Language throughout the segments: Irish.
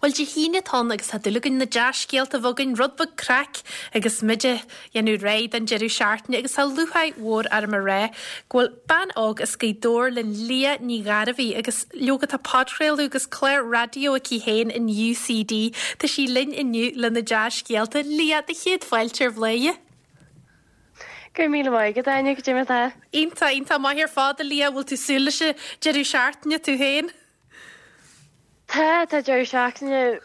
Bhuel, Dé hAoine atá ann agus tá dúil againn na dea-scéalta a bheith againn, rud beag craic agus muid ag dhéanamh réidh don deireadh seachtaine agus tá lúcháir mhór orm a rá go bhfuil bean óg as Gaoth Dobhair linn, Liadh Ní Ghairbhí, agus leoga tá podchraoladh agus clár raidió aici féin in UCD. Tá sí linn inniu le na dea-scéalta. Liadh, do chéad fáilte ar Bhladhaire. Go raibh míle maith agat, Áine, cad é mar atá? Iontach, iontach maith ar fad, a Liadh. Bhfuil tú súil leis an deireadh seachtaine tú féin? Tá, tá deireadh seachtaine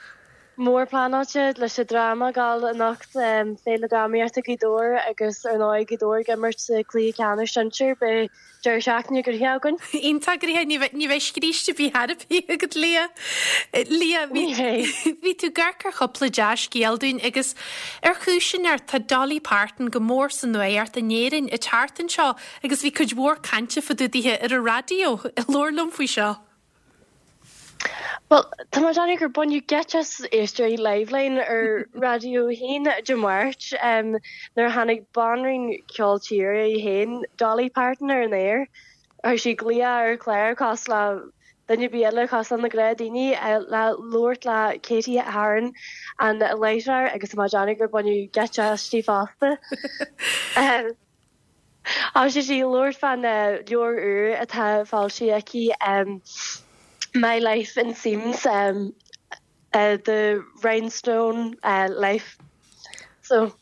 mór pleanáilte leis an dráma ag gabháil anocht, Féile Drámaíochta Ghaoth Dobhair agus ar ndóigh Gaoth Dobhair ag imirt sa chluiche ceannais sinsir. Beidh deireadh seachtaine gnoitheach againn. Iontach gnoitheach, ní bheidh, ní bheidh scríste ar bith ar bith agat Liadh. Liadh, bhí, Ní bheidh. bhí tú ag amharc ar chúpla dea-scéal dúinn agus ar chúis inteacht tá Dolly Parton go mór sa nuacht in Éirinn ag teacht anseo agus bhí cuid mhór cainte fá dtaobh dithe ar an raidió. Labhair liom faoi seo. Bhuel, tá mé ag déanamh gur baineadh geit as éisteoirí Liveline ar Raidió 1 Dé Máirt nuair a tháinig banríon ceol tíre í féin, Dolly Parton, ar an aer. Chuir sí glaoch ar an chlár cosúil le duine ar bith eile, cosúil le na gnáthdhaoine, le labhairt le Katie Heron, an láithreoir, agus tá mé ag déanamh gur baineadh geit aisti fosta. Thosaigh sí ag labhairt fán leabhar úr atá foilsithe aici, My Life in Seams, The Rhinestone Life. So.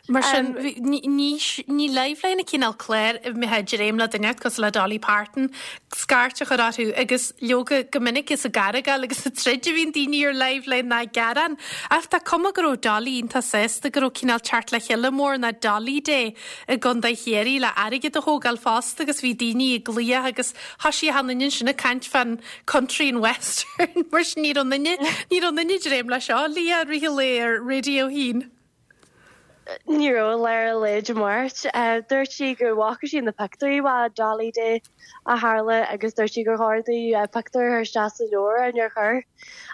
Mar sin, ní Liveline an cineál cláir a mbeifeá ag dréim le duine cosúil le Dolly Parton scairt a chur orthu agus leoga go minic is ag argáil agus ag troid a bhíonn daoine ar Liveline ná ag gearán. Ach tá cuma go raibh Dolly iontach sásta go raibh cineál teacht le chéile mór ná Dolly Day i gContae Chiarraí le airgead a thógáil fosta agus bhí daoine ag glaoch agus thoisigh achan duine ansin ag caint fán country and western mar sin ní raibh aon duine, ní raibh aon duine ag dréim leis seo, Liadh, i rith an lae ar Raidió 1. Ní raibh i lár an lae Dé Máirt. Dúirt sí go bhfaca sí na pictiúirí fá Dolly Day a tharla agus dúirt sí gur chóir di pictiúr a chur isteach sa leabhar ach níor chuir.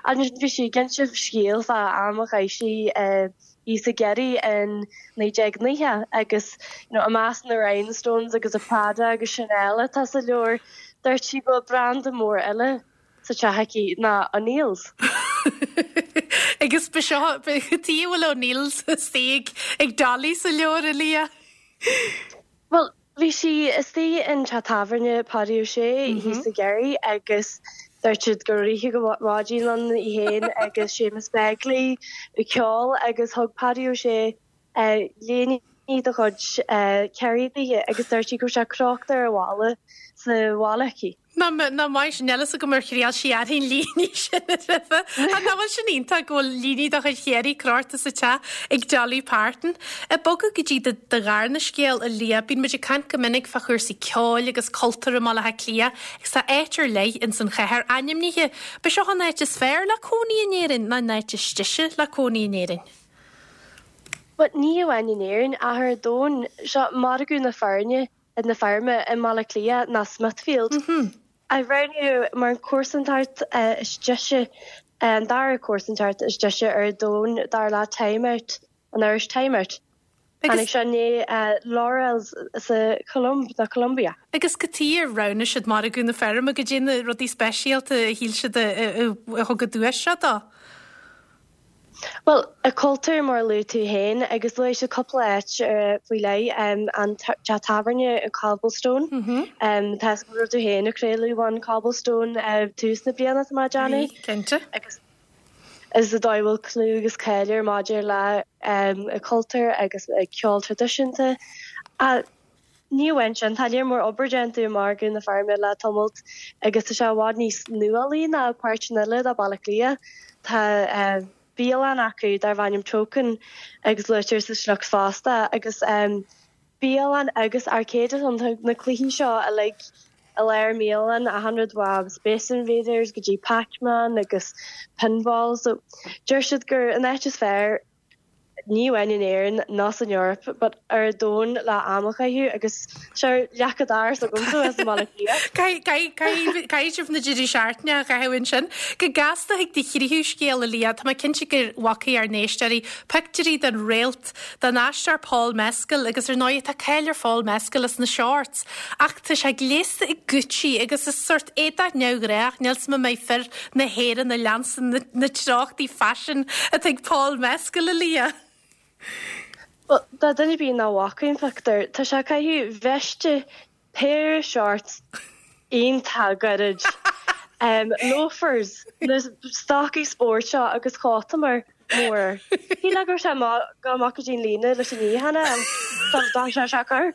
Ansin bhí sí ag inse scéal fá am a chaith sí i thíos i gCiarraí in 1990 agus you know i measc na rhinestones agus a Prada agus Chanel atá sa leabhar, dúirt sí go bhfuil branda mór eile sa teach aici ná O'Neill's. Agus ba seo, cad chuige a bhfuil O'Neill's istigh ag Dolly sa leabhar, a Liadh? Bhuel, Bhí sí istigh in teach tábhairne Páidí Ó Sé thíos i gCiarraí agus dúirt siad go raibh oíche go maidin ann í féin agus Séamus Begley ag ceol agus thug Páidí Ó Sé léine de chuid Kerry di agus dúirt sí go raibh sé crochta ar an bhalla sa bhaile aici. Nach maith sin, níl a fhios agam ar thriail sí uirthi an líne sin roimhe. Ach nach bhfuil sin iontach go bhfuil líne de chuid Chiarraí crochta sa teach ag Dolly Parton. Ag bogadh go dtí do dharna scéal, a Liadh, bíonn muid ag caint go minic fá chúrsaí ceoil agus cultúir i mBaile Átha Cliath agus tá áit ar leith ins an chathair ainmnithe. B'é seo an áit is fearr le cónaí in Éirinn nó an áit is deise le cónaí in Éirinn? Bhuel, ní amháin in Éirinn ach ar domhan. Seo margadh na feirme. na feirme i mBaile Átha Cliath ná Smithfield, a roghnaíodh mar an chomharsantacht is deise, an dara comharsantacht is deise ar domhan dar le Time Out, an iris Time Out. Tháinig seo i ndiaidh Laureles sa Cholóim, nó Colombia. Agus cad chuige ar roghnaigh siad margadh na feirme, goidé na rudaí speisialta a shíl siad a thug an duais seo dó. Bhuel, a cultúr mar a luaigh tú féin, agus luaigh siad cúpla áit faoi leith, an teach tábhairne an Cobblestone, tá a fhios agam go raibh tú féin ag craoladh ón Cobblestone tús na bliana, tá mé ag déanamh. Bhí, cinnte. Agus is an dóigh a bhfuil clú agus cáil air maidir le a cultúr agus a ceol traidisiúnta. Ní amháin sin, tá léar mór obair déanta i margadh na feirme le tamalt agus tá sé i bhfad níos nuálaí ná páirteanna eile de Bhaile Átha Cliath. Tá bialann acu darb ainm Token agus luaitear sa sliocht fosta agus bialann agus arcade ann. Tá na cluichí seo uilig i lár an bhialann, achan rud ó Space Invaders go dtí Pac-Man agus Pinball. So deir siad gur an áit is fearr. ní amháin in Éirinn ná san Eoraip but ar an domhan le am a chaitheamh agus sure leac an dorais agamsa as i mBaile Átha Cliath. Caithfidh sibh na deirí seachtaine a chaitheamh ansin. Go gasta chuig do thríú scéal, a Liadh, tá mé cinnte go bhfacaidh ár n-éisteoirí pictiúirí den réalt, den aisteoir Paul Mescal agus ar ndóigh tá cáil ar Phaul Mescal as na shorts ach tá sé gléasta i Gucci agus is sórt éadach neamhghnách, níl 's agam an mbeidh fir na hÉireann ag leanstan na treochtaí faisin atá ag Paul Mescal, a Liadh. Bhuel, do dhuine ar bith nach bhfaca an pictiúr, tá sé ag caitheamh veiste péire shorts iontach gairid, loafers, na stocaí spóirt seo agus cóta mór mór. Shílfeá go raibh sé ag gabháil amach go dtí an líne leis an níochán a fháil, tá sé cur.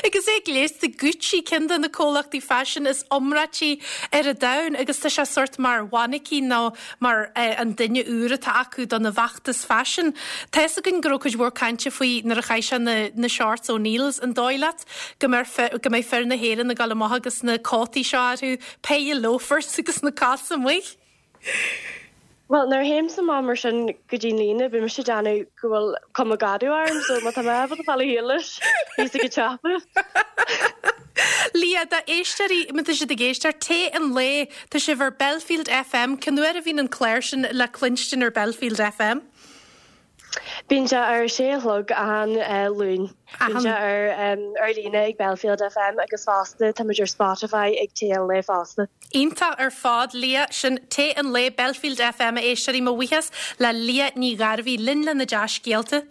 Agus é gléasta Gucci, ceann de na comhlachtaí faisin is iomráití ar an domhan agus tá sé sórt mar mhainicín nó mar an duine úr atá acu dona bhfeachtas faisin. Tá fhios againn go raibh cuid mhór cainte faoi nuair a chaith sé na na shorts O'Neills. An dóigh leat go mbeidh go mbeidh fir na hÉireann ag dul amach agus na cótaí seo orthu, péire loafers agus na cosa amuigh? Bhuel, nuair a théimse amach mar sin go dtí an líne, bíonn mise ag déanamh go bhfuil cuma gadaí orm, so má tá mé ábalta fáil a shíl leis, bíos ag ceapadh. Liadh, d'éisteoirí, má tá siad ag éisteacht, Tae an Lae, tá sibh ar Belfield FM, cén uair a bhíonn an clár sin le cluinstin ar Belfield FM? Bíonn sé ar a sé a chlog achan Luan. Bíonn sé ar ar líne ag Belfield FM agus fosta táimid ar Spotify ag Tae an Lae fosta. Iontach ar fad, Liadh. Sin Tae an Lae, Belfield FM, a éisteoirí. Mo bhuíochas le Liadh Ní Ghairbhí linn lena dea-scéalta.